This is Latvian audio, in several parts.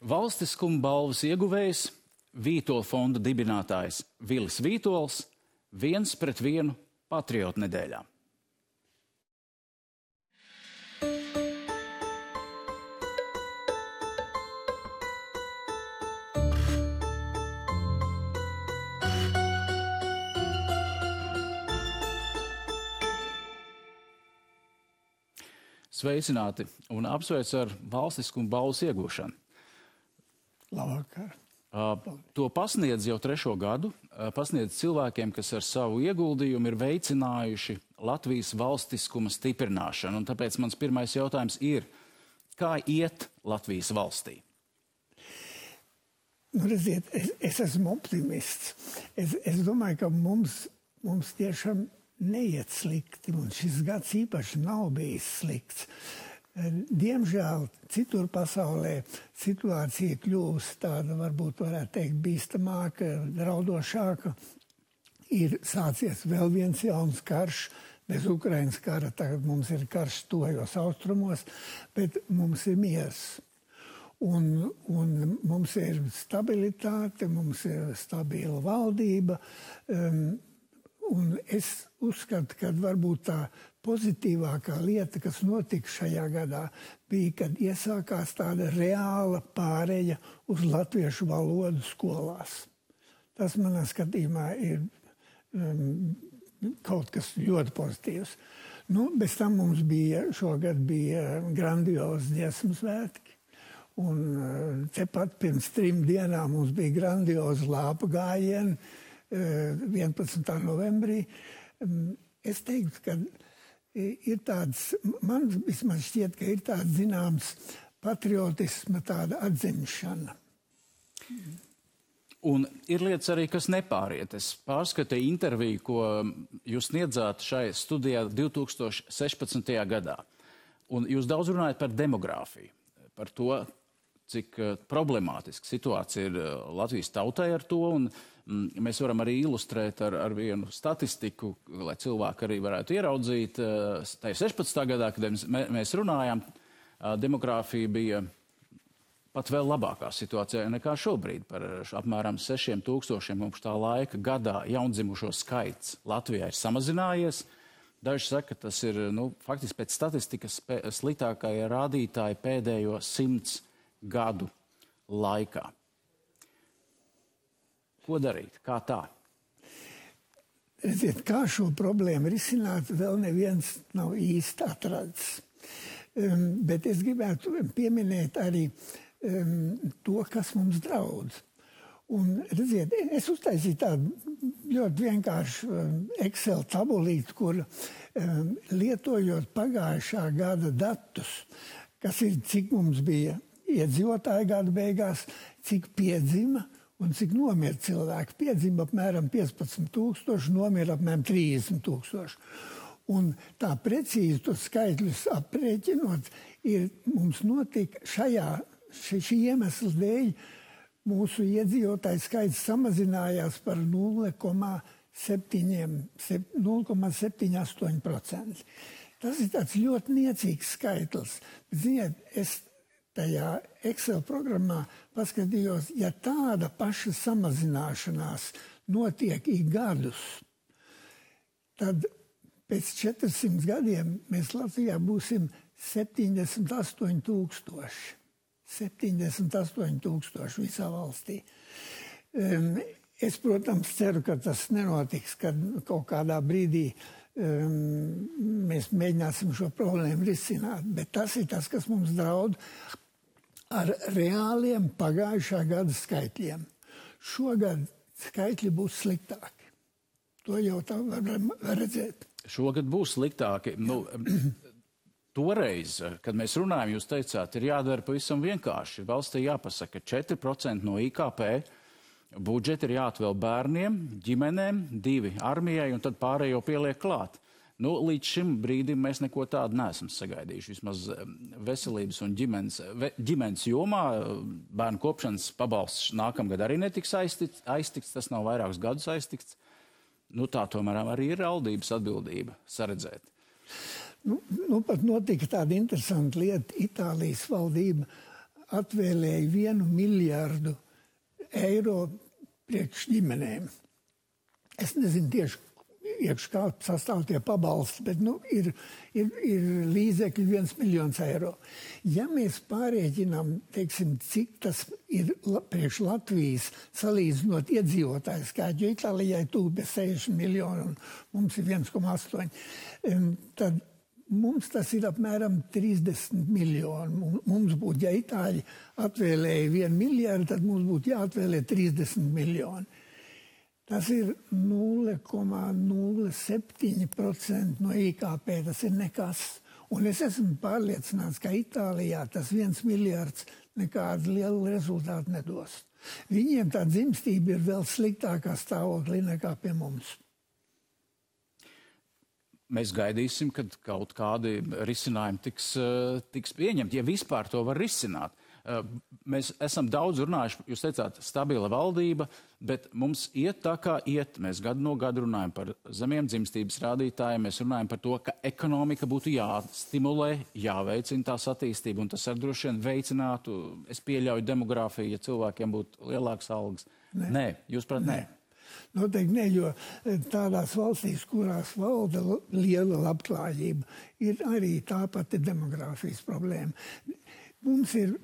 Valstiskuma balvas ieguvējs, Vītola fonda dibinātājs Vilis Vītols, 1-1 patriotu nedēļā. Sveicināti un apsveic ar valstiskuma balvas iegūšanu. Labvakar. To pasniedz jau 3. gadu, pasniedz cilvēkiem, kas ar savu ieguldījumu ir veicinājuši Latvijas valstiskuma stiprināšanu. Un tāpēc mans pirmais jautājums ir, kā iet Latvijas valstī? Redziet, es esmu optimists. Es domāju, ka mums tiešām neiet slikti, un šis gads īpaši nav bijis slikts. Diemžēl citur pasaulē situācija kļūst tāda, varbūt varētu teikt, bīstamāka, draudošāka. Ir sācies vēl viens jauns karš, bez Ukrainas kara, tagad mums ir karš tuvajos austrumos, bet mums ir miers. Un mums ir stabilitāte, mums ir stabila valdība, un es uzskatu, ka varbūt tā pozitīvākā lieta, kas notika šajā gadā, bija, kad iesākās tāda reāla pāreja uz latviešu valodu skolās. Tas manā skatījumā ir kaut kas ļoti pozitīvs. Bez tam mums šogad bija grandiozi dziesmu svētki. Un tepat pirms 3 dienām mums bija grandiozi lāpu gājieni 11. novembrī. Es teiktu, ka ir tāds, man vismaz šķiet, ka ir tāds zināms patriotisma tāda atzimšana. Un ir lietas arī, kas nepāriet. Es pārskatīju interviju, ko jūs sniedzāt šai studijā 2016. gadā. Un jūs daudz runājat par demogrāfiju, par to, cik problemātiska situācija ir Latvijas tautai ar to, un mēs varam arī ilustrēt ar vienu statistiku, lai cilvēki arī varētu ieraudzīt. Tā ir 16. gadā, kad mēs runājām, demogrāfija bija pat vēl labākā situācijā nekā šobrīd. Par apmēram 6,000 mums tā laika gadā jaundzimušo skaits Latvijā ir samazinājies. Daži saka, ka tas ir faktiski pēc statistikas sliktākie rādītāji pēdējo 100 gadu laikā. Ko darīt? Kā tā? Redziet, kā šo problēmu risināt, vēl neviens nav īsti atrads. Bet es gribētu pieminēt arī to, kas mums draud. Un, redziet, es uztaisīju tādu ļoti vienkāršu Excel tabulīti, kur lietojot pagājušā gada datus, kas ir, cik mums bija iedzīvotāju gada beigās, cik piedzima un cik nomira cilvēki. Piedzima apmēram 15,000, nomira apmēram 30,000. Un tā precīzi tos skaitļus aprēķinot, mums notika šī iemesla dēļ mūsu iedzīvotāju skaits samazinājās par 0,78%. Tas ir tāds ļoti niecīgs skaitlis. Ziniet, es tajā Excel programmā paskatījos, ja tāda paša samazināšanās notiek ik gadus, tad pēc 400 gadiem mēs Latvijā būsim 78,000. 78,000 visā valstī. Es, protams, ceru, ka tas nenotiks, kad kaut kādā brīdī mēs mēģināsim šo problēmu risināt, bet tas ir tas, kas mums draud ar reāliem pagājušā gada skaitļiem. Šogad skaitļi būs sliktāki. To jau tā var redzēt. Šogad būs sliktāki. Toreiz, kad mēs runājam, jūs teicāt, ir jādara pavisam vienkārši. Valstī jāpasaka, 4% no IKP budžeti ir jāatvēl bērniem, ģimenēm, 2 armijai un tad pārējo pieliek klāt. Līdz šim brīdim mēs neko tādu neesam sagaidījuši. Vismaz veselības un ģimenes jomā bērnu kopšanas pabalsts nākamgad arī netiks aiztikts, tas nav vairākus gadus aiztikts. Tā tomēr arī ir valdības atbildība saredzēt. Pat notika tāda interesanta lieta. Itālijas valdība atvēlēja 1 miljardu eiro priekš ģimenēm. Es nezinu tieši, kā sastāv tie pabalsti, bet ir līdzekļi 1 miljons eiro. Ja mēs pārēķinām, teiksim, cik tas ir priekš Latvijas salīdzinot iedzīvotāju skaitu, jo Itālijai tuvu 60 miljoni un mums ir 1,8, tad mums tas ir apmēram 30 miljoni. Mums būtu, ja Itāļi atvēlēja 1 miljardu, tad mums būtu jāatvēlē 30 miljoni. Tas ir 0,07% no IKP, tas ir nekas. Un es esmu pārliecināts, ka Itālijā tas 1 miljards nekādu lielu rezultātu nedos. Viņiem tā dzimstība ir vēl sliktākā stāvoklī nekā pie mums. Mēs gaidīsim, kad kaut kādi risinājumi tiks pieņemti, ja vispār to var risināt. Mēs esam daudz runājuši, jūs teicāt, stabila valdība, bet mums iet tā kā iet. Mēs gadu no gada runājam par zemiem dzimstības rādītājiem, mēs runājam par to, ka ekonomika būtu jāstimulē, jāveicina tās attīstība, un tas ar droši vien veicinātu, es pieļauju demogrāfiju, ja cilvēkiem būtu lielākas algas. Nē, jūs prāt, nē. Noteikti ne, jo tādās valstīs, kurās valda liela labklājība, ir arī tāpat demogrāfijas problēma. Mums ir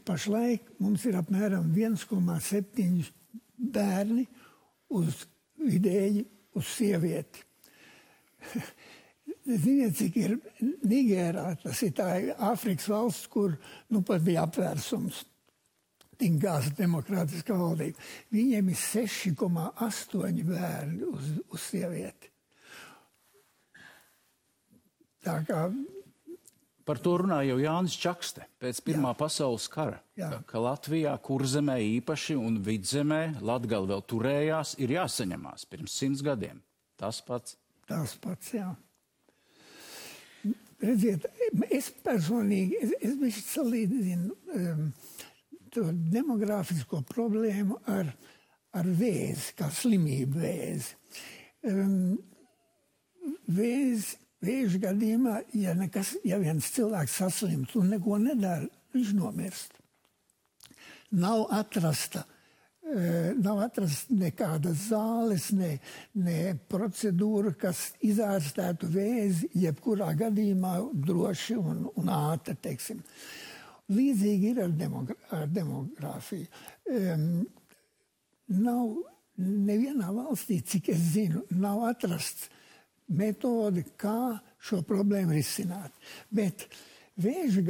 apmēram 1,7 bērni vidēji uz sievieti. Ziniet, cik ir Nigērā, tas ir tā Āfrikas valsts, kur pat bija apvērsums. Tingās demokrātiskā valdība. Viņiem ir 6,8 bērni uz sievieti. Tā kā par to runāja jau Jānis Čakste pēc Pirmā pasaules kara, ka Latvijā, Kurzemē īpaši un Vidzemē, Latgale vēl turējās, ir jāsaņemās pirms 100 gadiem. Tas pats. Tas pats, jā. Redziet, es personīgi, es bišķi salīdzinu to demogrāfisko problēmu ar vēzi, kā slimību vēzi. Vēža gadījumā, ja viens cilvēks saslims un neko nedara, viņš nomirst. Nav atrasta nekādas zāles, ne procedūra, kas izārstētu vēzi, jebkurā gadījumā droši un ātri, teiksim. Līdzīgi ir ar demogrāfiju. Nav nevienā valstī, cik es zinu, nav atrasts metodi, kā šo problēmu risināt. Bet vēža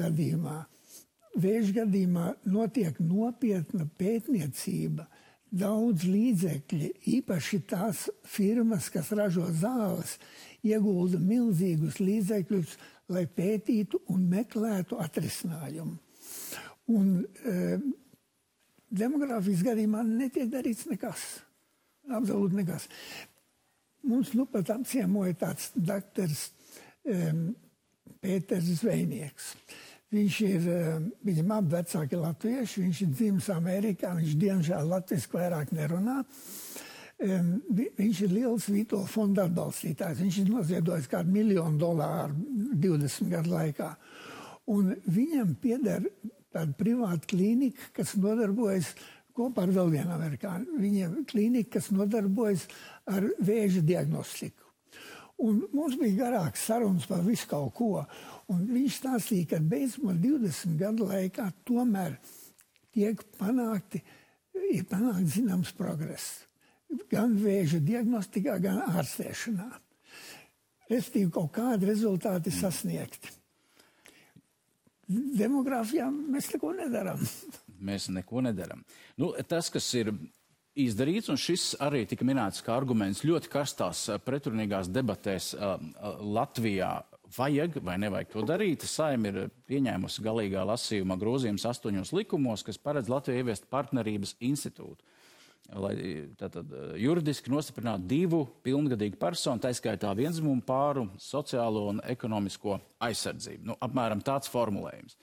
gadījumā notiek nopietna pētniecība, daudz līdzekļi, īpaši tās firmas, kas ražo zāles, iegulda milzīgus līdzekļus, lai pētītu un meklētu atrisinājumu. Un demogrāfijas gadījumā netiek darīts nekas. Absolūti nekas. Mums pat apciemoja tāds daktars Pēters Zvejnieks. Viņam abi vecāki latvieši, viņš ir dzimis Amerikā, viņš diemžēl latviski vairāk nerunā. Viņš ir liels Vito fonda atbalstītājs. Viņš ir noziedojis kādu $1 miljonu 20 gadu laikā. Un viņam pieder tāda privāta klīnika, kas nodarbojas kopā ar vēl vienu amerikāņu. Viņiem klīnika, kas nodarbojas ar vēža diagnostiku. Un mums bija garāks sarunas par visu kaut ko. Un viņš stāstīja, ka beidzot 20 gadu laikā tomēr ir panākt zināms progress. Gan vēža diagnostikā, gan ārstēšanā. Restīvi kaut kādi rezultāti sasniegti. Demogrāfijā mēs neko nedaram. Mēs neko nedaram. Tas, kas ir izdarīts, un šis arī tika minēts kā arguments ļoti karstās pretrunīgās debatēs Latvijā, vajag vai nevajag to darīt. Saeima ir pieņēmusi galīgā lasījumā grozījumus 8 likumos, kas paredz Latvijai ieviest partnerības institūtu, lai tātad juridiski nostiprinātu 2 pilngadīgu personu, tā skaitā vienzimumu pāru, sociālo un ekonomisko aizsardzību. Apmēram tāds formulējums.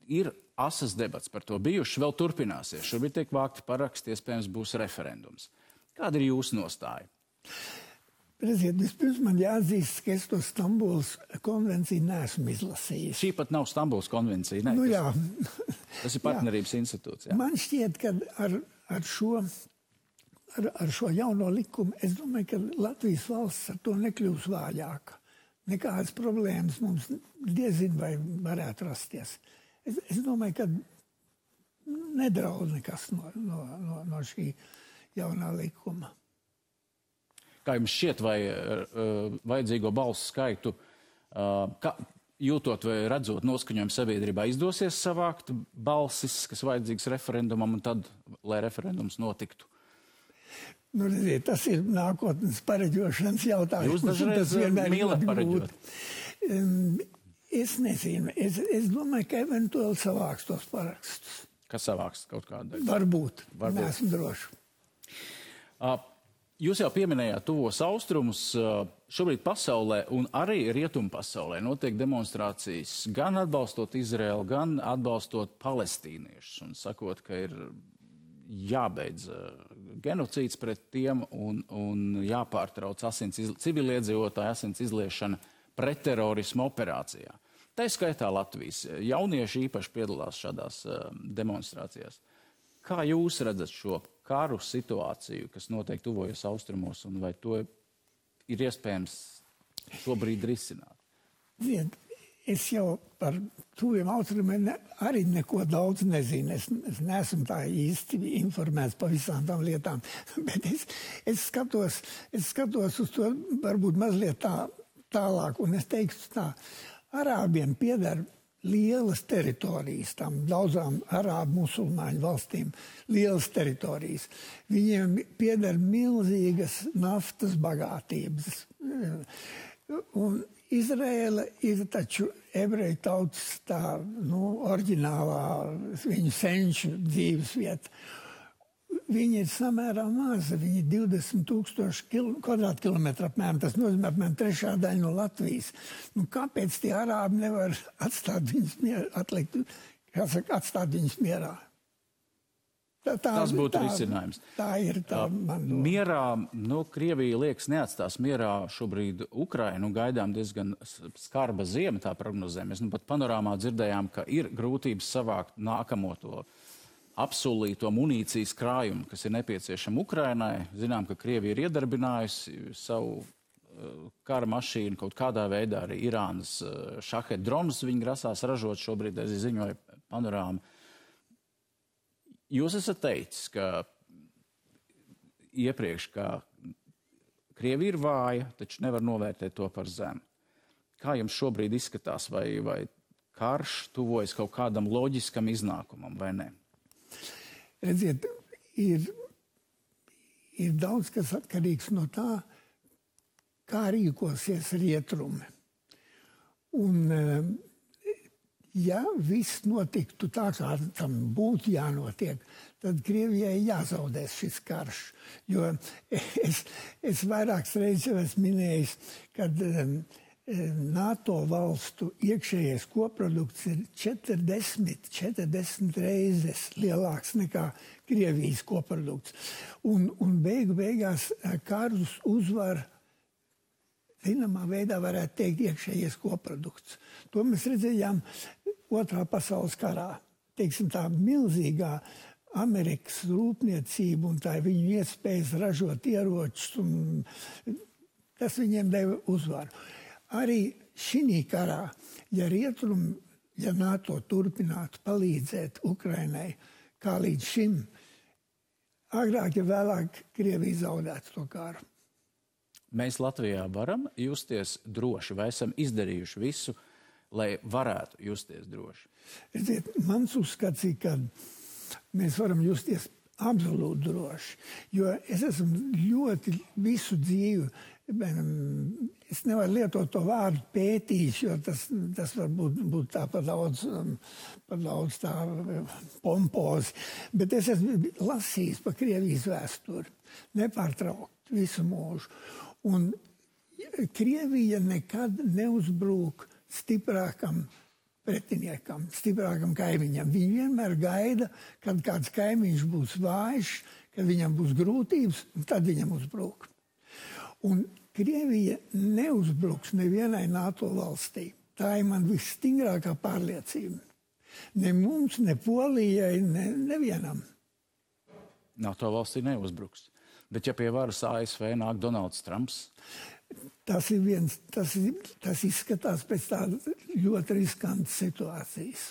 Ir asas debats par to bijuši, vēl turpināsies. Šobrīd tiek vākti paraksti, iespējams būs referendums. Kāda ir jūsu nostāja? Redziet, vispirms man jāatzīst, ka es to Stambulas konvenciju neesmu izlasījis. Šī pat nav Stambulas konvencija, ne? Nu, jā. Tas ir partnerības institūts, jā. Man šķiet, ka ar šo jauno likumu, es domāju, ka Latvijas valsts ar to nekļūs vājāka. Nekādas problēmas mums diezin vai varētu rasties. Es domāju, ka nedraud nekas no šī jaunā likuma. Kā jums šķiet, vai vajadzīgo balsu skaitu, jūtot vai redzot noskaņojumu sabiedrībā, izdosies savākt balsis, kas vajadzīgs referendumam, un tad, lai referendums notiktu? Nu, redziet, tas ir nākotnes pareģošanas jautājums. Jūs dažreiz mīlat pareģot. Es nezinu. Es domāju, ka eventuāli savāks tos parakstus. Kas savāks kaut kādu? Varbūt. Neesmu droši. Jūs jau pieminējāt tuvos austrumus. Šobrīd pasaulē un arī rietumu pasaulē notiek demonstrācijas gan atbalstot Izraelu, gan atbalstot palestīniešus un sakot, ka ir jābeidz genocīds pret tiem un jāpārtrauc civiliedzīvotāju asins izliešana pretterorismu operācijā. Tā skaitā Latvijas jaunieši īpaši piedalās šādās demonstrācijās. Kā jūs redzat šo karu situāciju, kas notiek tuvojos austrumos, un vai to ir iespējams šobrīd risināt? Es jau par tuviem austrumiem arī neko daudz nezinu. Es neesmu tā īsti informēts par visām tām lietām, bet es skatos uz to varbūt mazliet tālāk, un es teiktu tā, Arābiem pieder lielas teritorijas, tam daudzām arābu musulmaņu valstīm, lielas teritorijas. Viņiem pieder milzīgas naftas bagātības. Un Izraela ir taču ebreju tautas tā, oriģinālā viņu senču dzīves vieta. Viņi ir samērā maza, viņi ir 20,000 kvadrātkilometru apmēram, tas nozīmē apmēram 1/3 daļa no Latvijas. Kāpēc tie arābi nevar atstāt viņus mierā? Tas būtu risinājums. Tā ir tā man doma. Mierā, Krievija liekas neatstās mierā šobrīd Ukrainu, gaidām diezgan skarba ziema, tā prognozē. Mēs pat panorāmā dzirdējām, ka ir grūtības savākt nākamo to apsolīto munīcijas krājumu, kas ir nepieciešama Ukrainai. Zinām, ka Krievija ir iedarbinājusi savu kara mašīnu kaut kādā veidā, arī Irānas šahet dronus viņi grasās ražot šobrīd, es ziņoju panorāmu. Jūs esat teicis, ka iepriekš, ka Krievija ir vāja, taču nevar novērtēt to par zemu. Kā jums šobrīd izskatās, vai karš tuvojas kaut kādam loģiskam iznākumam, vai ne? Redziet, ir daudz kas atkarīgs no tā, kā rīkosies rietumi. Un, ja viss notiktu tā, kā tam būtu jānotiek, tad Krievijai jāzaudēs šis karš. Jo es vairākas reizes jau esmu minējis, kad NATO valstu iekšējais koprodukts ir 40 reizes lielāks nekā Krievijas koprodukts. Un beigās karus uzvar, zināmā veidā varētu teikt, iekšējais koprodukts. To mēs redzējām Otrā pasaules karā. Teiksim, tā milzīgā Amerikas rūpniecība un tā viņu iespējas ražot ieročus, un tas viņiem deva uzvaru. Arī šī karā, ja NATO turpinātu palīdzēt Ukrainai, kā līdz šim, agrāk ja vēlāk Krievija zaudētu to karu. Mēs Latvijā varam justies droši, vai esam izdarījuši visu, lai varētu justies droši? Mans uzskats ir, ka mēs varam justies absolūti droši, jo es esmu ļoti visu dzīvi, es nevaru lietot to vārdu pētījis, jo tas varbūt tā par daudz tā pompozi, bet es esmu lasījis par Krievijas vēsturi, nepārtraukt visu mūžu. Un Krievija nekad neuzbrūk stiprākam pretiniekam, stiprākam kaimiņam. Viņi vienmēr gaida, kad kāds kaimiņš būs vājš, kad viņam būs grūtības, un tad viņam uzbrūk. Un Krievija neuzbruks nevienai NATO valstī. Tā ir man visstingrākā pārliecība. Ne mums, ne Polijai, nevienam. NATO valstī neuzbruks. Bet ja pie varas ASV nāk Donalds Trumps? Tas izskatās pēc tādas ļoti riskantas situācijas.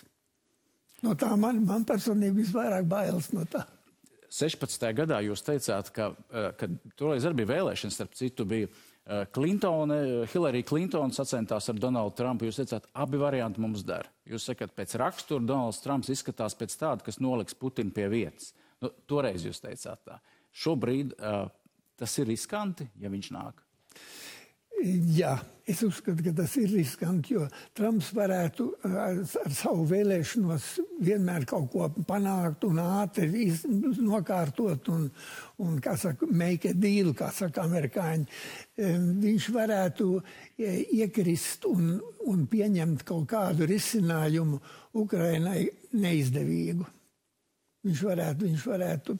No tā man personīgi visvairāk bailes no tā. 16. gadā jūs teicāt, ka toreiz arī bija vēlēšanas, starp citu bija Hillary Clinton sacentās ar Donaldu Trumpu. Jūs teicāt, abi varianti mums der. Jūs sakat, pēc rakstura Donalds Trumps izskatās pēc tāda, kas noliks Putinu pie vietas. Nu, toreiz jūs teicāt tā. Šobrīd tas ir riskanti, ja viņš nāk? Jā, es uzskatu, ka tas ir riskanti, jo Trumps varētu ar savu vēlēšanos vienmēr kaut ko panākt un ātri nokārtot un kā saka, make a deal, kā saka amerikāņi. Viņš varētu iekrist un pieņemt kaut kādu risinājumu Ukrainai neizdevīgu. Viņš varētu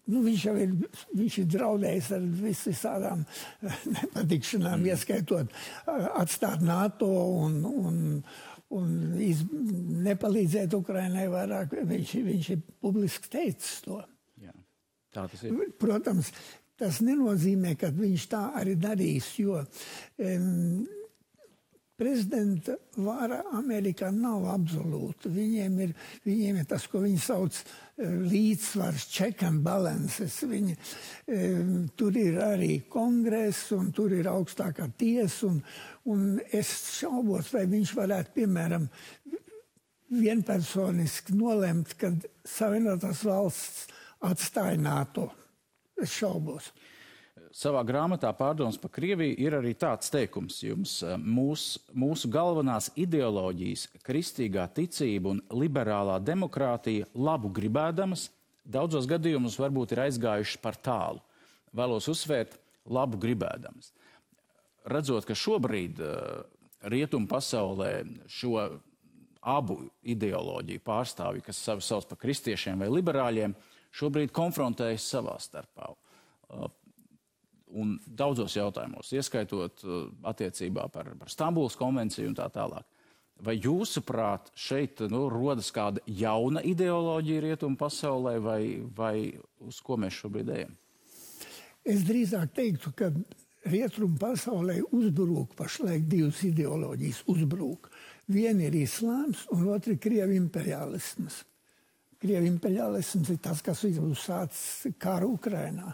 viņš ir draudējis ar visādām nepatikšanām, ieskaitot atstāt NATO un nepalīdzēt Ukrainai vairāk. Viņš ir publiski teicis to. Jā, tā tas ir. Protams, tas nenozīmē, ka viņš tā arī darīs, jo prezidenta vara Amerikā nav absolūta. Viņiem ir tas, ko viņi sauc līdzsvars, check and balances. Tur ir arī kongress un tur ir augstākā tiesa un es šaubos, vai viņš varētu, piemēram, vienpersoniski nolemt, kad Savienotās valsts atstāja NATO. Es šaubos. Savā grāmatā Pārdomas par Krieviju ir arī tāds teikums jums. Mūsu galvenās ideoloģijas, kristīgā ticība un liberālā demokrātija labu gribēdamas, daudzos gadījumos varbūt ir aizgājušas par tālu. Vēlos uzsvērt labu gribēdamas. Redzot, ka šobrīd rietumu pasaulē šo abu ideoloģiju pārstāvji, kas sevi sauc par kristiešiem vai liberāļiem, šobrīd konfrontējas savā starpā. Un daudzos jautājumos, ieskaitot attiecībā par Stambulas konvenciju un tā tālāk. Vai jūsuprāt šeit rodas kāda jauna ideoloģija rietumu pasaulē vai uz ko mēs šobrīd ejam? Es drīzāk teiktu, ka rietumu pasaulē uzbrūk pašlaik divas ideoloģijas uzbrūk. Viena ir islāms un otra ir Krievu imperialisms. Krievu imperialisms ir tas, kas ir uzsācis karu Ukrainā.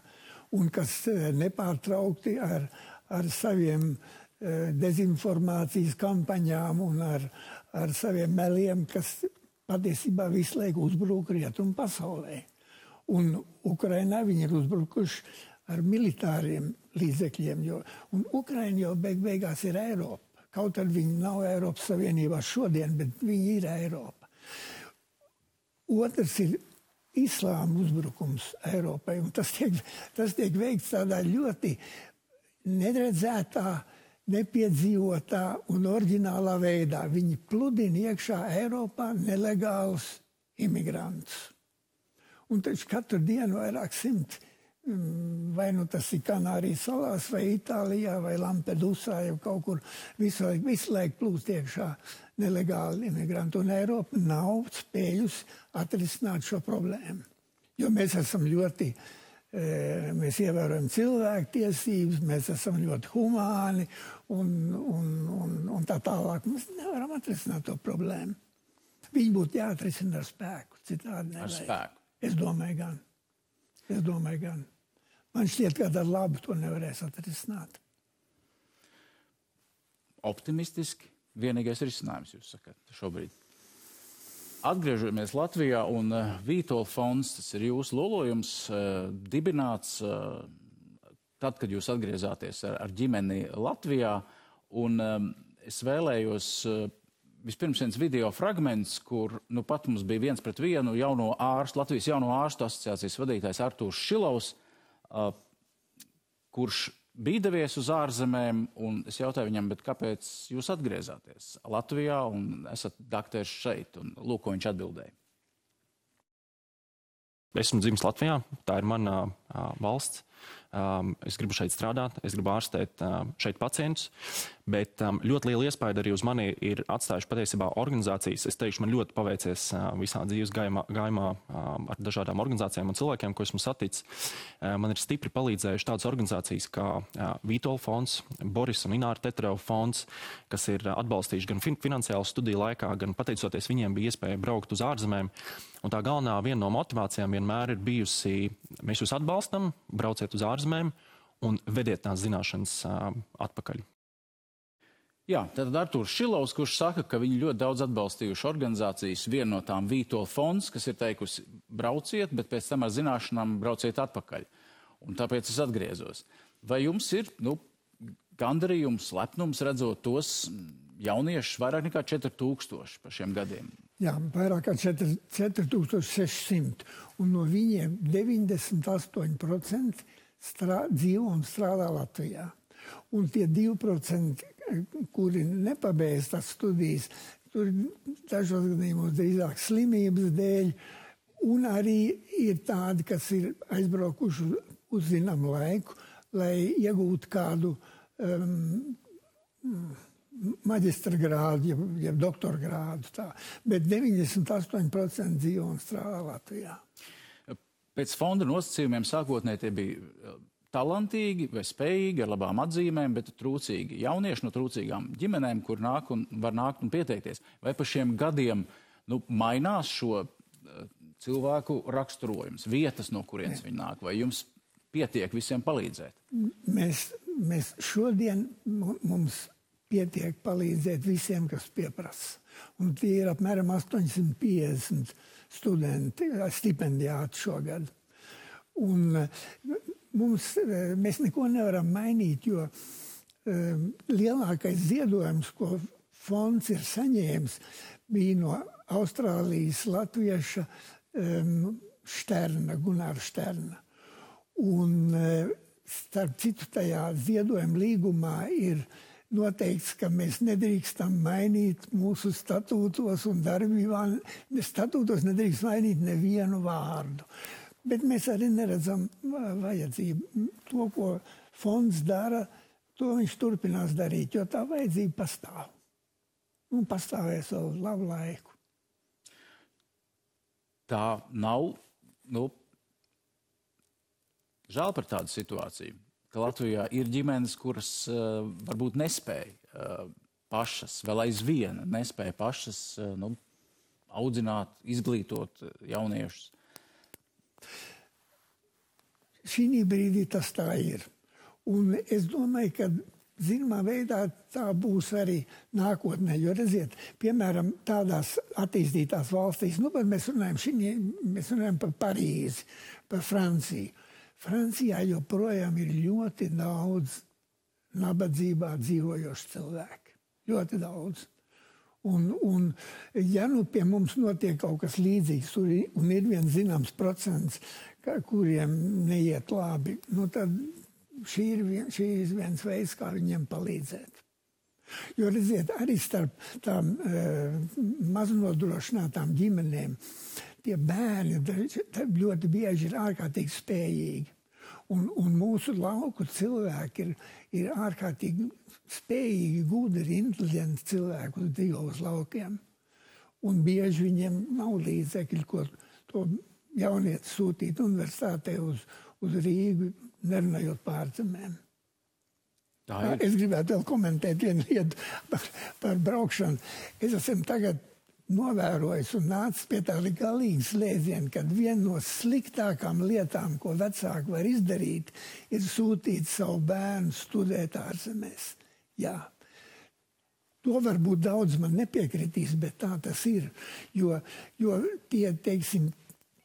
Un kas nepārtraukti ar saviem dezinformācijas kampaņām un ar saviem meliem, kas patiesībā visu laiku uzbrūk rietumu pasaulē. Un Ukrainā viņi ir uzbrukuši ar militāriem līdzekļiem, un Ukraina jau beigās ir Eiropa. Kaut arī viņi nav Eiropas Savienībā šodien, bet viņi ir Eiropa. Otrs ir islāma uzbrukums Eiropai, un tas tiek veikts tādā ļoti neredzētā, nepiedzīvotā un oriģinālā veidā. Viņi pludina iekšā Eiropā nelegālus imigrantus. Un taču katru dienu vairāk simti, vai tas ir Kanārijas salās, vai Itālijā, vai Lampedusā, jau kaut kur visu laiku plūst iekšā nelegāli imigranti. Un Eiropa nav spējusi atrisināt šo problēmu. Jo mēs esam mēs ievērojam cilvēktiesības, mēs esam ļoti humāni un tā tālāk. Mēs nevaram atrisināt to problēmu. Viņi būtu jāatrisina ar spēku, citādi nevajag. Ar spēku? Es domāju gan. Man šķiet, ka ar labu to nevarēs atrisināt. Optimistiski vienīgais risinājums, jūs sakat, šobrīd. Atgriežamies Latvijā un Vītola fonds, tas ir jūsu lolojums, dibināts tad, kad jūs atgriezāties ar ģimeni Latvijā. Un es vēlējos vispirms viens video fragments, kur pat mums bija 1-1 jauno ārstu, Latvijas jauno ārstu asociācijas vadītājs Artūrs Šilovs, kurš bija devies uz ārzemēm, un es jautāju viņam, bet kāpēc jūs atgriezāties Latvijā un esat dakteris šeit? Un lūk, ko viņš atbildēja. Esmu dzimis Latvijā, tā ir mana valsts. Es gribu šeit strādāt, es gribu ārstēt šeit pacientus, bet ļoti liela iespēja arī uz mani ir atstājuši patiesībā organizācijas. Es teikšu, man ļoti paveicies visā dzīves gājumā ar dažādām organizācijām un cilvēkiem, ko esmu saticis. Man ir stipri palīdzējuši tādas organizācijas kā Vītola fonds, Boris un Ināra Tetereva fonds, kas ir atbalstījuši gan finansiālu studiju laikā, gan pateicoties viņiem bija iespēja braukt uz ārzemēm. Un tā galvenā viena no motivācijām vienmēr ir bijusi, mēs jūs atbalstam, brauciet uz ārzemēm un vediet tās zināšanas atpakaļ. Jā, tad Artūrs Šilovs, kurš saka, ka viņi ļoti daudz atbalstījuši organizācijas, viena no tām Vītola fonds, kas ir teikusi brauciet, bet pēc tam ar zināšanām brauciet atpakaļ. Un tāpēc es atgriezos. Vai jums ir gandarījums, lepnums redzot tos jauniešus vairāk nekā 4000 pa šiem gadiem? Jā, vairāk kā 4600. Un no viņiem 98% dzīvo un strādā Latvijā. Un tie 2%, kuri nepabeidz tās studijas, tur dažos gadījumos drīzāk slimības dēļ, un arī ir tādi, kas ir aizbraukuši uz zināmu laiku, lai iegūtu kādu maģistra grādu, jeb doktora grādu. Tā. Bet 98% dzīvo un strādā Latvijā. Pēc fonda nosacījumiem sākotnēji tie bija talantīgi vai spējīgi, ar labām atzīmēm, bet trūcīgi jaunieši no trūcīgām ģimenēm, kur var nākt un pieteikties. Vai pa šiem gadiem mainās šo cilvēku raksturojums, vietas, no kurienes viņi nāk, vai jums pietiek visiem palīdzēt? Mēs šodien mums pietiek palīdzēt visiem, kas pieprasa. Un tie ir apmēram 850 studenti, stipendiāti šogad. Un mēs neko nevaram mainīt, jo lielākais ziedojums, ko fonds ir saņēmis, bija no Austrālijas latvieša Šterna, Gunāra Šterna. Un starp citu tajā ziedojuma līgumā ir noteikts, ka mēs nedrīkstam mainīt mūsu statūtos un darbībā. Statūtos nedrīkst mainīt nevienu vārdu. Bet mēs arī neredzam vajadzību. To, ko fonds dara, to viņš turpinās darīt, jo tā vajadzība pastāv. Un pastāvēs vēl labu laiku. Tā nav, žēl par tādu situāciju, ka Latvijā ir ģimenes, kuras varbūt nespēja pašas, vēl aizvien nespēja pašas audzināt, izglītot jauniešus. Šī brīdī tas tā ir. Un es domāju, ka zināmā veidā tā būs arī nākotnē. Jo, redziet, piemēram, tādās attīstītās valstīs, bet mēs runājam par Parīzi, par Franciju. Francijā joprojām ir ļoti daudz nabadzībā dzīvojošu cilvēku. Ļoti daudz. Un ja pie mums notiek kaut kas līdzīgs, un ir viens zināms procents, kuriem neiet labi, tad šī ir viens veids, kā viņiem palīdzēt. Jo, redziet, arī starp tām maznodrošinātām ģimenēm tie bērni ļoti bieži ir ārkārtīgi spējīgi. Un mūsu lauku cilvēki ir ārkārtīgi spējīgi, gudri, inteliģenti cilvēki, kas dzīvo uz laukiem. Un bieži viņiem nav līdzekļi, ko to jaunieti sūtīt universitātē uz Rīgu, nerunājot pārzemēm. Es gribētu vēl komentēt vienu lietu par braukšanu. Es esmu tagad novērojis un nācis pie tā galīgas slēdziena, kad viena no sliktākām lietām, ko vecāki var izdarīt, ir sūtīt savu bērnu studēt ārzemēs. Jā. To varbūt daudz man nepiekritīs, bet tā tas ir. Jo tie, teiksim,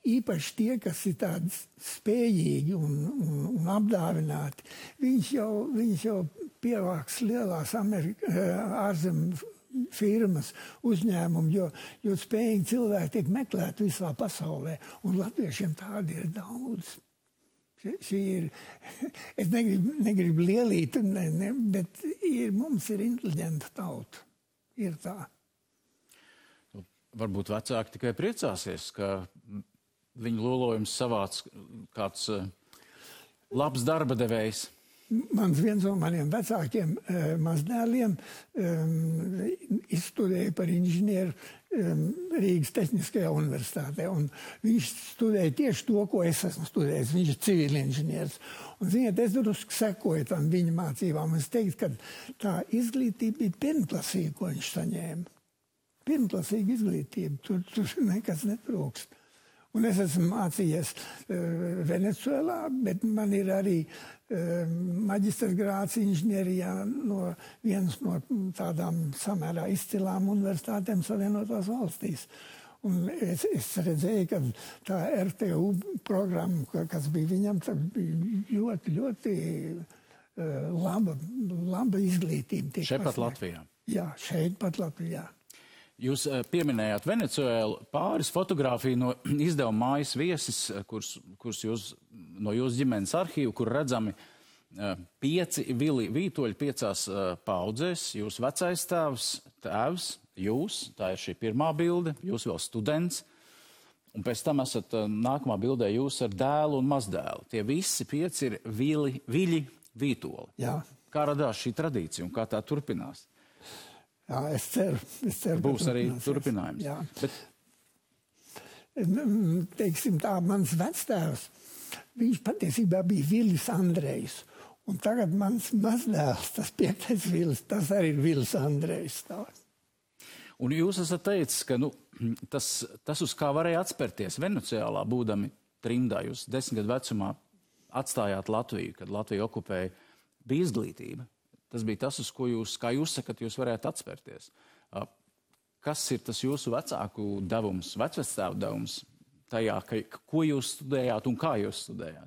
īpaši tie, kas ir tādi spējīgi un apdāvināti, viņš jau pievāks lielās ārzemju firmas, uzņēmumi, jo spējīgi cilvēki tiek meklēti visā pasaulē, un latviešiem tādi ir daudz. Es negribu lielīt, bet mums ir inteliģenta tauta. Ir tā. Varbūt vecāki tikai priecāsies, ka viņu lolojums savāc kāds Labs darba devējs. Viens no maniem vecākiem mazdēliem izstudēja par inženieru Rīgas Tehniskajā universitātē. Un viņš studēja tieši to, ko es esmu studējis. Viņš ir civilinženieris. Un, ziniet, es drusku sekoju tam viņa mācībām. Es teiktu, ka tā izglītība bija pirmklasīga, ko viņš saņēma. Pirmklasīga izglītība. Tur nekas netrūkst. Un es esmu mācījies Venecuēlā, bet man ir arī maģistra grāds inženierijā no vienas no tādām samērā izcilām universitātēm Savienotās valstīs. Un es redzēju, ka tā RTU programma, kas bija viņam, bija ļoti, ļoti laba izglītība. Šeit pat Latvijā? Jā, šeit pat Latvijā. Jūs pieminējāt Venecuēlu, pāris fotogrāfiju no izdevuma Mājas viesis, kurus jūs no jūsu ģimenes arhīvu, kur redzami 5 vītoļi 5 paudzēs. Jūs vecais tēvs, jūs, tā ir šī pirmā bilde, jūs vēl students, un pēc tam esat nākamā bildē jūs ar dēlu un mazdēlu. Tie visi 5 ir viļi vītoli. Jā. Kā radās šī tradīcija un kā tā turpinās? Jā, es ceru. Būs arī turpinājums. Jā. Bet... Teiksim tā, mans vectēvs, viņš patiesībā bija Vilis Andrejs. Un tagad mans mazdēls, tas 5. Vilis, tas arī ir Vilis Andrejs. Un jūs esat teicis, ka tas uz kā varēja atspērties Venecuēlā, būdami trimdā, jūs 10 gadu vecumā atstājāt Latviju, kad Latviju okupēja, bija izglītība. Tas bija tas, uz ko jūs, kā jūs sakat, jūs varētu atspērties. Kas ir tas jūsu vecāku devums, vecvectēvu devums tajā, ko jūs studējāt un kā jūs studējāt?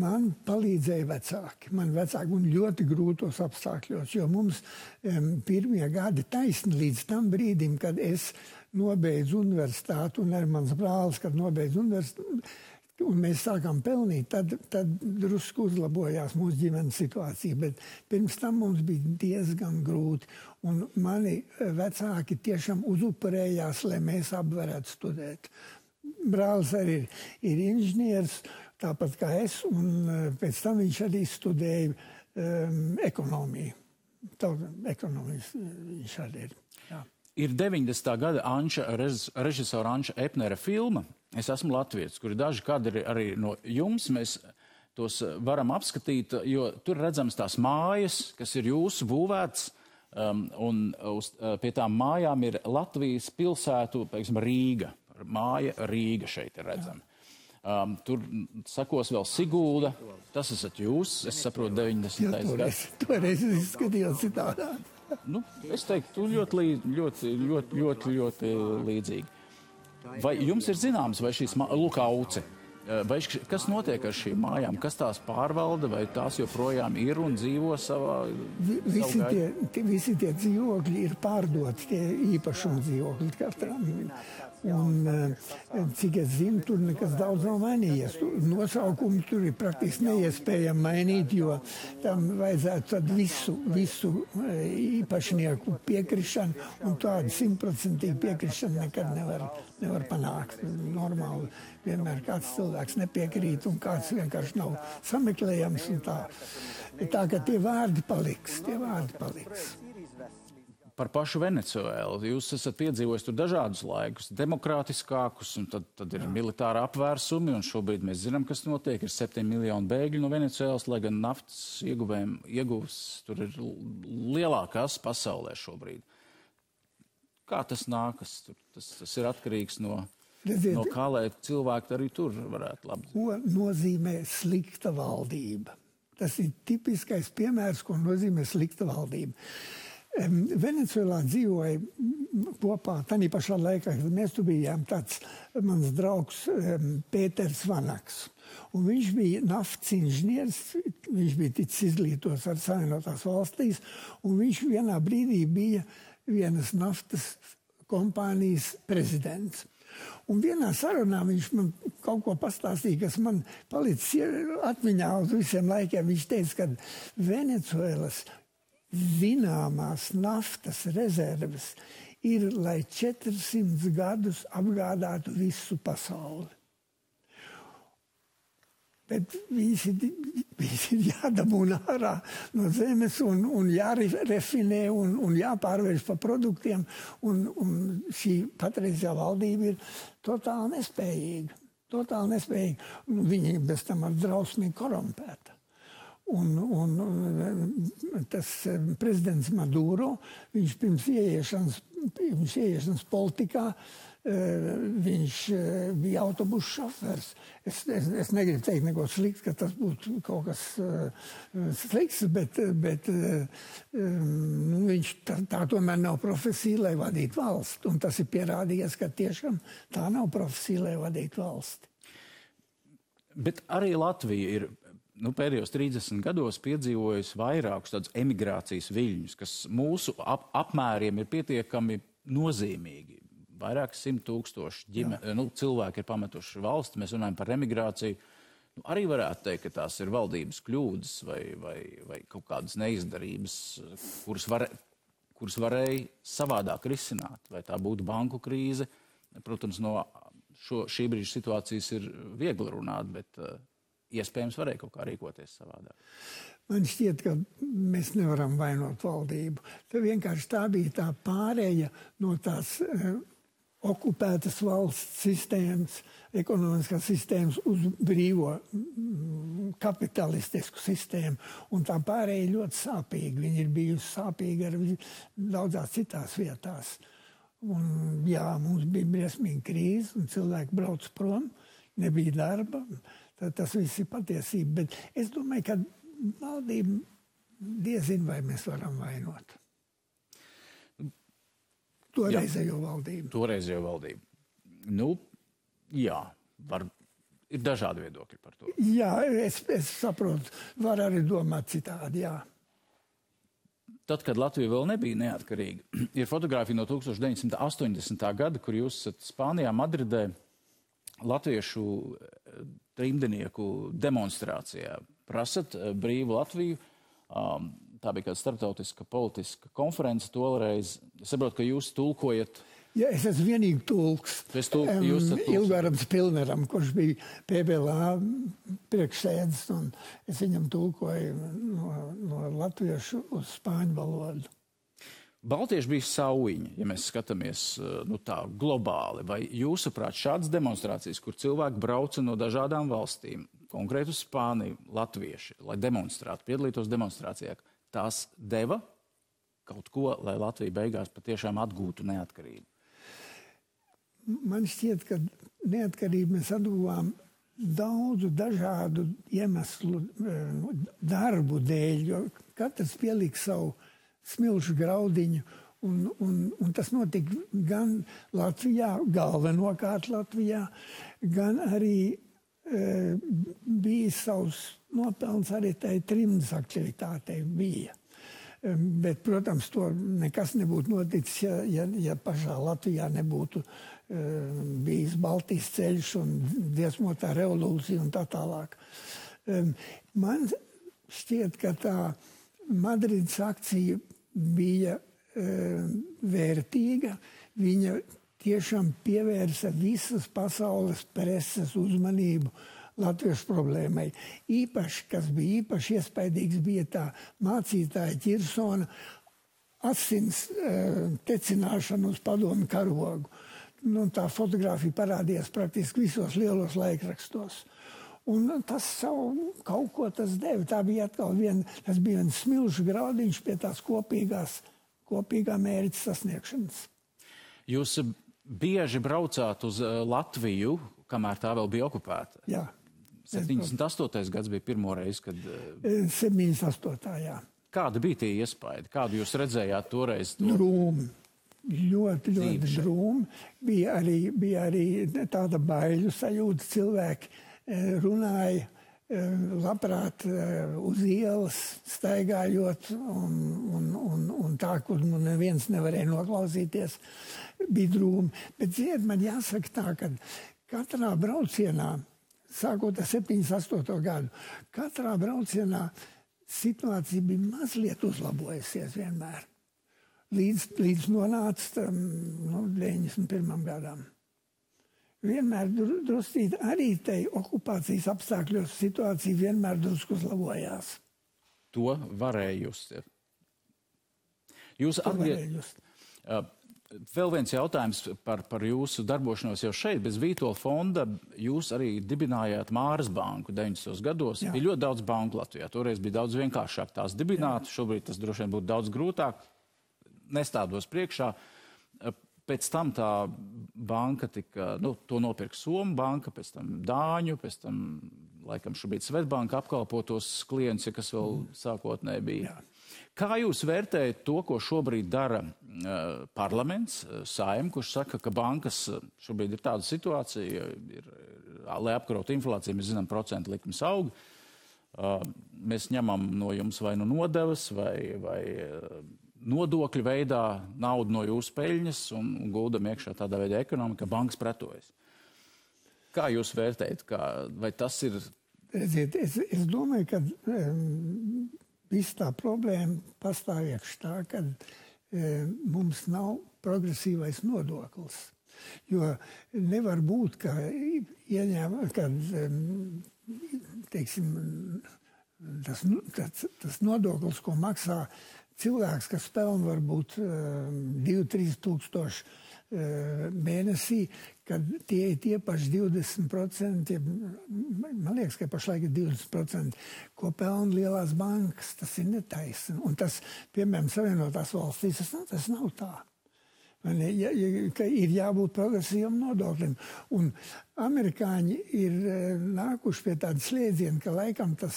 Man palīdzēja vecāki. Man vecāki un ļoti grūtos apstākļos, jo mums pirmie gadi taisni līdz tam brīdim, kad es nobeidzu universitāti un arī mans brālis, kad nobeidzu universitāti, un mēs sākām pelnīt, tad drusku uzlabojās mūsu ģimenes situācija, bet pirms tam mums bija diezgan grūti. Un mani vecāki tiešām uzupurējās, lai mēs abi varētu studēt. Brālis arī ir inženieris, tāpat kā es, un pēc tam viņš arī studēja ekonomiju. Ekonomijas viņš arī ir. Jā. Ir 90. gada režisora Anša Epnera filma Es esmu latvietis, kur ir daži kadri arī no jums. Mēs tos varam apskatīt, jo tur redzams tās mājas, kas ir jūsu būvētas, un pie tām mājām ir Latvijas pilsētu, piemēram, Rīga. Māja Rīga šeit ir redzama. Tur sakos vēl Sigulda. Tas esat jūs, es saprotu, 90. gads. Toreiz izskatījās citādā. Es teiktu, ļoti līdzīgi. Vai jums ir zināms, vai šīs Auce, vai kas notiek ar šīm mājām, kas tās pārvalda, vai tās joprojām ir un dzīvo savā... Visi tie dzīvokļi ir pārdoti, tie īpašuma dzīvokļi katram. Un, cik es zinu, tur nekas daudz nav mainījies. Nosaukumi tur ir praktiski neiespējami mainīt, jo tam vajadzētu tad visu īpašnieku piekrišanu, un tādu 100% piekrišanu nekad nevar panākt. Normāli vienmēr kāds cilvēks nepiekrīt, un kāds vienkārši nav sameklējams. Tā ka tie vārdi paliks. Par pašu Venecuēlu. Jūs esat piedzīvojis tur dažādus laikus, demokrātiskākus, un tad ir militāra apvērsumi, un šobrīd mēs zinām, kas notiek. Ir 7 miljoni bēgļu no Venecuēlas, lai gan naftas ieguvs tur ir lielākās pasaulē šobrīd. Kā tas nākas? Tas ir atkarīgs no kā, lai cilvēki arī tur varētu labi. Ko nozīmē slikta valdība? Tas ir tipiskais piemērs, ko nozīmē slikta valdība. Venecuēlā dzīvoja kopā, tādā pašā laikā, kad mēs tur bijām, tāds mans draugs Pēters Vanaks. Un viņš bija naftas inženieris, viņš bija ticis izglītots ar Savienotās valstīs, un viņš vienā brīdī bija vienas naftas kompānijas prezidents. Un vienā sarunā viņš man kaut ko pastāstīja, kas man palicis atmiņā uz visiem laikiem. Viņš teica, ka Venecuēlas zināmās naftas rezerves ir, lai 400 gadus apgādātu visu pasauli. Bet visi ir jādabūna ārā no zemes un jārefinē un jāpārvērš par produktiem. Un šī patreizējā valdība ir totāli nespējīga. Viņi bez tam ar drausmīgi korumpēta. Un tas prezidents Maduro, viņš pirms ieiešanas politikā, viņš bija autobusu šofers. Es negribu teikt neko slikts, ka tas būtu kaut kas slikts, bet viņš tā tomēr nav profesija, lai vadītu valsti. Un tas ir pierādījies, ka tiešām tā nav profesija, lai vadītu valsti. Bet arī Latvija ir pēdējos 30 gados piedzīvojusi vairākus tādus emigrācijas viļņus, kas mūsu apmēriem ir pietiekami nozīmīgi. Vairāk 100,000 cilvēki ir pametuši valsti. Mēs runājam par emigrāciju. Arī varētu teikt, ka tās ir valdības kļūdas vai kaut kādas neizdarības, kuras varēja savādāk risināt. Vai tā būtu banku krīze. Protams, no šī brīža situācijas ir viegli runāt, bet iespējams varēja kaut kā rīkoties savādāk. Man šķiet, ka mēs nevaram vainot valdību. Vienkārši tā bija tā pārēja no tās okupētas valsts sistēmas, ekonomiskās sistēmas uz brīvo kapitalistisku sistēmu. Un tā pārēja ļoti sāpīga. Viņa ir bijusi sāpīga ar daudzās citās vietās. Un, jā, mums bija briesmīga krīze, un cilvēki brauc prom, nebija darba. Tas viss ir patiesība. Bet es domāju, ka valdība diezin vai mēs varam vainot. Toreizējo valdību. Jā, ir dažādi viedokļi par to. Jā, es saprotu, var arī domāt citādi, jā. Tad, kad Latvija vēl nebija neatkarīga, ir fotogrāfija no 1980. gada, kur jūs esat Spānijā, Madridē, latviešu trimdenieku demonstrācijā. Prasat brīvu Latviju. Tā bija kāda starptautiska politiska konference toreiz. Es saprotu, ka jūs tulkojat. Ja, es esmu vienīgi tulks. Ilgarams Pilneram, kurš bija PBLA priekšsēdis, un es viņam tulkoju no latviešu uz spāņu valodu. Baltieši bija saujiņi, ja mēs skatāmies tā globāli. Vai jūsuprāt šādas demonstrācijas, kur cilvēki brauca no dažādām valstīm, konkrēti uz Spāniju, latvieši, lai demonstrētu, piedalītos demonstrācijā, tās deva kaut ko, lai Latvija beigās patiešām atgūtu neatkarību? Man šķiet, ka neatkarību mēs atguvām daudzu dažādu iemeslu darbu dēļ, jo katrs pielika savu smilšu graudiņu, un tas notika gan Latvijā, galvenokārt Latvijā, gan arī bija savs nopelns arī tai trimdas aktivitātei bija. Bet, protams, to nekas nebūtu noticis, ja pašā Latvijā nebūtu bijis Baltijas ceļš un dziesmotā revolūcija un tā tālāk. Man šķiet, ka tā Madrides akcija bija vērtīga. Viņa tiešām pievērsa visas pasaules preses uzmanību latviešu problēmai. Kas bija īpaši iespaidīgs, bija tā mācītāja Ķirsona asins tecināšana uz padomu karogu. Tā fotogrāfija parādījās praktiski visos lielos laikrakstos. Un tas savu kaut ko tas deva. Tā bija atkal tas bija viens smilšu graudiņš pie tās kopīgā mērķa sasniegšanas. Jūs bieži braucāt uz Latviju, kamēr tā vēl bija okupēta? Jā. 78. gads bija pirmo reizi, kad... 78. jā. Kāda bija tie iespaidi? Kādu jūs redzējāt toreiz? Drūmi. Ļoti drūmi. Bija arī tāda baiļu sajūta. Cilvēki runāja labprāt uz ielas, staigājot un tā, kur neviens nevarēja noklausīties, bija drūmi. Bet, ziniet, man jāsaka tā, ka katrā braucienā, sākot ar 78. gadu, katrā braucienā situācija bija mazliet uzlabojusies vienmēr. Līdz nonāca 91. gadam. vienmēr druscīt arī tai okupācijas apstākļos situācija vienmēr drusku uzlabojās. To varēja just. Jūs atgriežaties. Vēl viens jautājums par jūsu darbošanos jau šeit. Bez Vītola fonda jūs arī dibinājāt Māras banku 90. gados. Jā. Bija ļoti daudz banku Latvijā. Toreiz bija daudz vienkāršāk tās dibināt. Jā. Šobrīd tas droši vien būtu daudz grūtāk. Nestādos priekšā. Pēc tam tā banka tika, to nopirka Somu banka, pēc tam Dāņu, pēc tam, laikam, šobrīd Svetbanka apkalpotos klientus, kas vēl sākotnēji bija. Jā. Kā jūs vērtējat to, ko šobrīd dara parlaments, Saeima, kurš saka, ka bankas šobrīd ir tāda situācija, lai apkarotu inflāciju, mēs zinām, procentu likmes aug. Mēs ņemam no jums vai no nodevas, vai nodokļu veidā naudu no jūsu peļņas un guldam iekšā tādā veidā ekonomika, bankas pretojas. Kā jūs vērtējat? Vai tas ir... Redziet, es domāju, ka... Viss tā problēma pastāv iekš tā, ka mums nav progresīvais nodoklis. Jo nevar būt, ka teiksim, tas nodoklis, ko maksā cilvēks, kas pelna varbūt 2-3 tūkstoši mēnesī, kad tie ir tie paši 20%, man liekas, ka pašlaik ir 20%, ko pelna lielās bankas, tas ir netaisni. Un tas, piemēram, Savienotās valstīs, tas nav tā. Ka ir jābūt progresīvam nodoklim. Un amerikāņi ir nākuši pie tāda slēdziena, ka laikam tā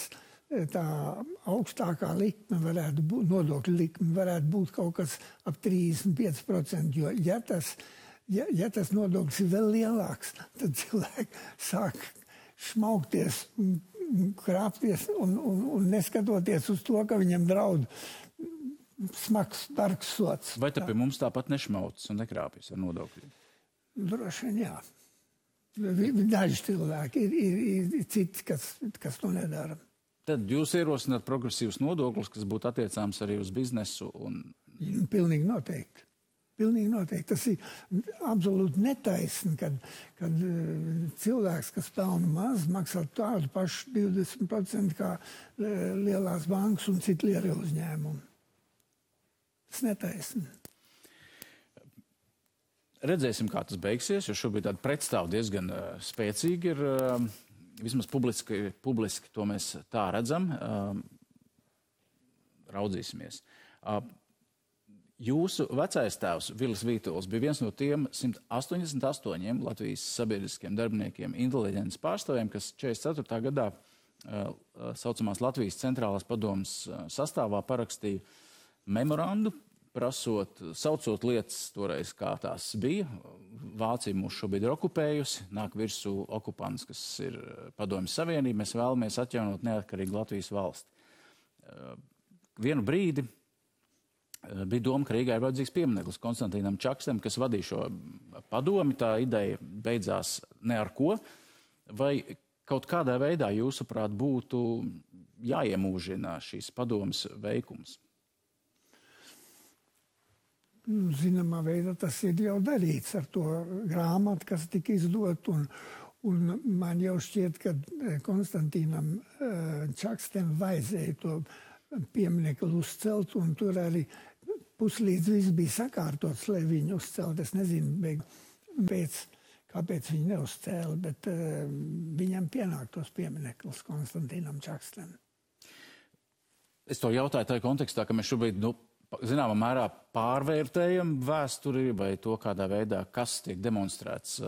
augstākā likme varētu būt, nodokļu likme varētu būt kaut kas ap 35%, jo ja tas nodoklis ir vēl lielāks, tad cilvēki sāk šmaukties, krāpties un neskatoties uz to, ka viņam draud smags, bargs sots. Vai tad pie mums tāpat nešmaucas un nekrāpjas ar nodokļiem? Droši vien jā. Daži cilvēki ir citi, kas to nedara. Tad jūs ierosināt progresīvus nodokļus, kas būtu attiecāms arī uz biznesu? Pilnīgi noteikti. Pilnīgi noteikti. Tas ir absolūti netaisni, kad cilvēks, kas pelna maz, maksā tādu pašu 20% kā lielās bankas un citu lielu uzņēmumu. Tas netaisni. Redzēsim, kā tas beigsies, jo šobrīd tāda pretstāv diezgan spēcīgi ir. Vismaz publiski to mēs tā redzam. Raudzīsimies. Jūsu vecais tēvs, Vilis Vītols, bija viens no tiem 188 Latvijas sabiedriskiem darbiniekiem, inteliģences pārstāvjiem, kas 44. gadā saucamās Latvijas centrālās padomes sastāvā parakstīja memorandu, saucot lietas toreiz, kā tās bija. Vācija mūs šobrīd ir okupējusi, nāk virsū okupants, kas ir Padomjas Savienība, mēs vēlamies atjaunot neatkarīgu Latvijas valsti. Vienu brīdi bija doma, ka Rīgā ir vajadzīgs piemineklis Konstantīnam Čakstam, kas vadīja šo padomi. Tā ideja beidzās ne ar ko. Vai kaut kādā veidā, jūsuprāt, būtu jāiemūžina šīs padomas veikums? Zināmā veidā tas ir jau darīts ar to grāmatu, kas tika izdot, un man jau šķiet, ka Konstantīnam Čakstam vajadzēja to pieminekli uzcelt, un tur arī puslīdz viss bija sakārtots, lai viņu uzcelt. Es nezinu, kāpēc viņi neuzcēla, bet viņam pienāktos piemineklis Konstantīnam Čakstam. Es to jautāju tajā kontekstā, ka mēs šobrīd, zināmā mērā pārvērtējam vēsturi vai to, kādā veidā, kas tiek demonstrēts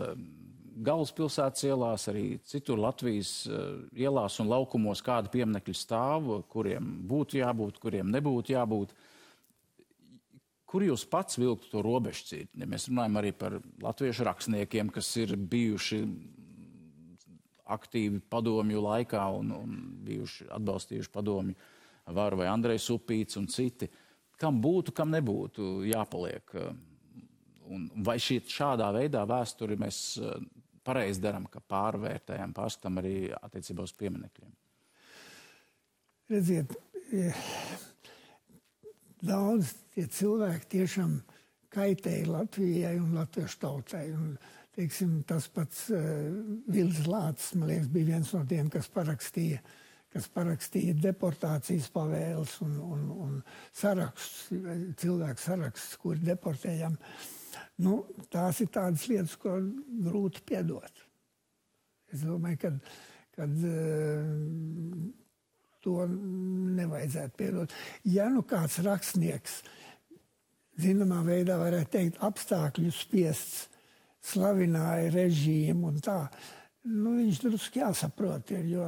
galvaspilsētas ielās, arī citur Latvijas ielās un laukumos, kādi pieminekļi stāv, kuriem būtu jābūt, kuriem nebūtu jābūt. Kur jūs pats vilktu to robežcīti? Ja mēs runājam arī par latviešu rakstniekiem, kas ir bijuši aktīvi padomju laikā un bijuši atbalstījuši padomju varu, vai Andrejs Upīts un citi. Kam būtu, kam nebūtu jāpaliek? Un vai šādā veidā vēsturi mēs pareizi darām, ka pārvērtējam, pārskatām arī attiecībā uz pieminekļiem? Redziet, daudz tie cilvēki tiešām kaitēja Latvijai un latviešu tautai. Un teiksim, tas pats Vils Lācis, man liekas, bija viens no tiem, kas parakstīja deportācijas pavēles un sarakstus, cilvēku sarakstus, kuri deportējam. Nu, tās ir tādas lietas, ko grūti piedot. Es domāju, kad to nevajadzētu piedot. Ja nu kāds rakstnieks, zināmā veidā varētu teikt, apstākļu spiests, slavināja režīmu un tā, nu, viņš drusku jāsaprot, jo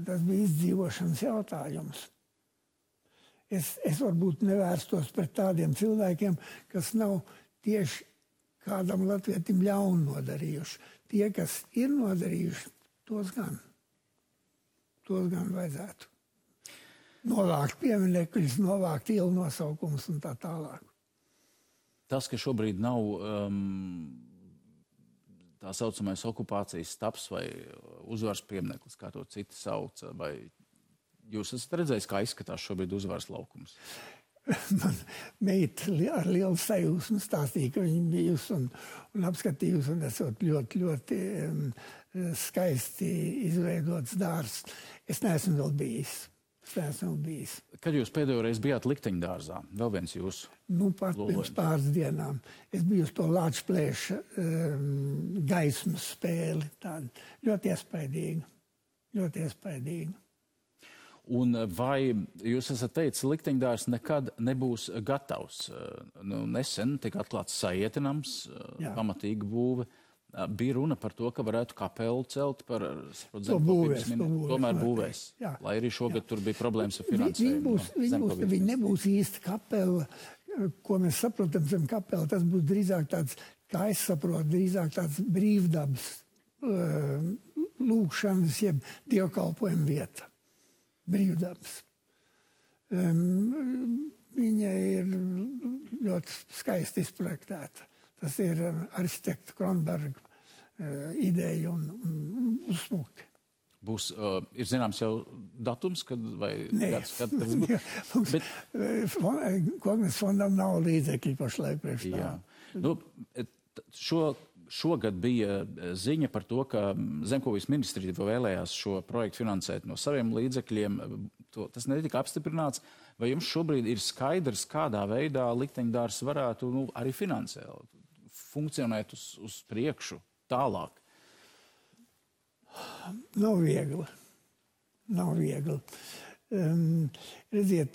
tas bija izdzīvošanas jautājums. Es varbūt nevērstos pret tādiem cilvēkiem, kas nav tieši kādam latvietim ļaunu nodarījuši. Tie, kas ir nodarījuši, tos gan vajadzētu. Novākt pieminekļus, novākt ielu nosaukumus un tā tālāk. Tas, ka šobrīd nav tā saucamais okupācijas stabs vai uzvaras piemineklis, kā to citi sauc, vai jūs esat redzējis, kā izskatās šobrīd uzvaras laukums? Man meita ar lielu sajūsmu stāstīja, ka viņa bijusi un apskatījusi, un esot ļoti, ļoti skaisti izveidots dārs. Es neesmu vēl bijis. Kad jūs pēdējo reizi bijāt Likteņdārzā? Vēl viens jūsu? Nu, pat pirms pāris dienām. Es biju uz to Lāčplēša gaismas spēli. Tāda ļoti iespaidīga. Un vai jūs esat teicis, Likteņdārs nekad nebūs gatavs? Nu, nesen tika atklāts Sajietinams, pamatīga būve. Bija runa par to, ka varētu kapelu celt par zemkopības minējumu. Tomēr būvēs. Lai arī šogad tur bija problēmas ar finansējumu. Viņi nebūs īsti kapela, ko mēs saprotam zem kapela. Tas būs drīzāk tāds, kā es saprotu, drīzāk tāds brīvdabas lūkšanas, jeb dievkalpojuma vieta. Brīvdabas. Viņa ir ļoti skaisti izprojektēta. Tas ir arhitekta Kronberga ideja un uzsmuki. Būs, ir zināms jau datums, kad vai gads, kad tas būs? Kongres fondam nav līdzekļi pašlaik priekš tā. Nu, šogad bija ziņa par to, ka Zemkopības ministrija vēlējās šo projektu finansēt no saviem līdzekļiem. Tas netika apstiprināts. Vai jums šobrīd ir skaidrs, kādā veidā Likteņdārs varētu arī finansēt, funkcionēt uz priekšu tālāk? Nav viegli. Redziet,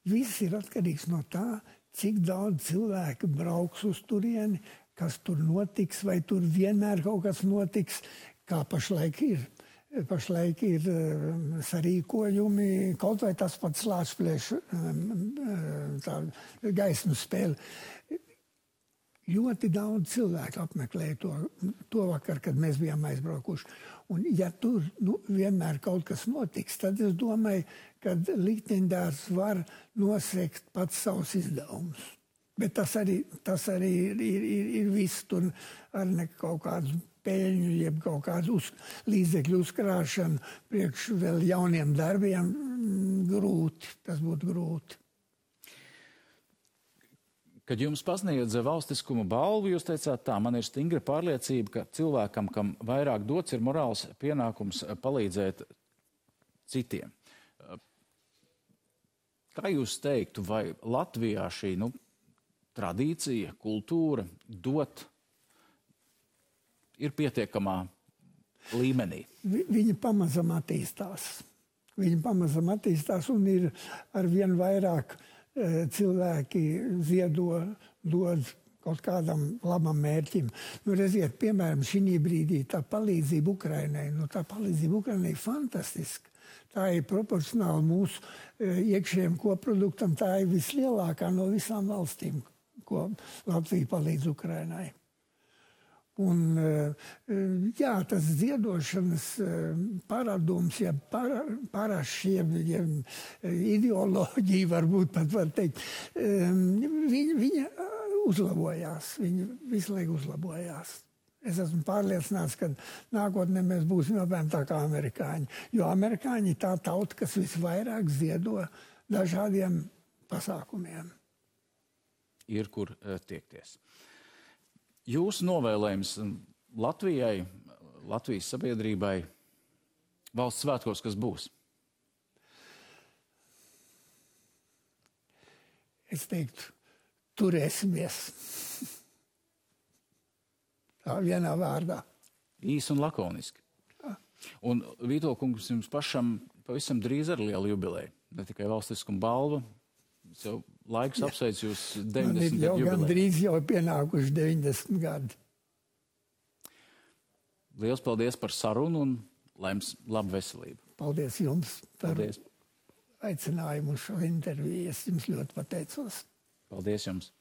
viss ir atkarīgs no tā, cik daudz cilvēku brauks uz turieni, kas tur notiks, vai tur vienmēr kaut kas notiks, kā pašlaik ir. Pašlaik ir sarīkojumi, kaut vai tas pats Lāčplēša gaismas spēle. Ļoti daudz cilvēku apmeklēja to vakar, kad mēs bijām aizbraukuši. Un ja tur vienmēr kaut kas notiks, tad es domāju, ka Likteņdārs var nosegt pats savus izdevumus. Bet tas arī ir viss tur ar ne kaut kādus peļņu, jeb kaut kādu līdzekļu uzkrāšanu priekš vēl jauniem darbiem grūti. Tas būtu grūti. Kad jums pasniedza valstiskuma balvu, jūs teicāt tā, man ir stingra pārliecība, ka cilvēkam, kam vairāk dots, ir morāls pienākums palīdzēt citiem. Kā jūs teiktu, vai Latvijā šī tradīcija, kultūra dot ir pietiekamā līmenī? Viņa pamazam attīstās un ir arvien vairāk cilvēki dod kaut kādam labam mērķim. Redziet, piemēram, šī brīdī tā palīdzība Ukrainai, tā palīdzība Ukrainai ir fantastiska. Tā ir proporcionāli mūsu iekšējiem koproduktam, tā ir vislielākā no visām valstīm, ko Latvija palīdz Ukrainai. Un, jā, tas ziedošanas paradums, ja parašiem, ja ideoloģija varbūt pat var teikt, viņa uzlabojās, viņa visu laiku uzlabojās. Es esmu pārliecināts, ka nākotnē mēs būsim apmēram tā kā amerikāņi, jo amerikāņi ir tā tauta, kas visvairāk ziedo dažādiem pasākumiem. Ir kur tiekties. jūsu novēlējums Latvijai, Latvijas sabiedrībai valsts svētkos, kas būs? Es teiktu, turēsimies. Tā vienā vārdā. Īsi un lakoniski. Un Vītola kungs, jums pašam pavisam drīz ar lielu jubileju. Ne tikai valstiskuma balva. Jau laiks apsveic jūs 90 gadu jubileju. Gan drīz jau pienākuši 90 gadi. Liels paldies par sarunu un laims labu veselību. Paldies jums par Paldies. aicinājumu uz šo interviju. Es jums ļoti pateicos. Paldies jums.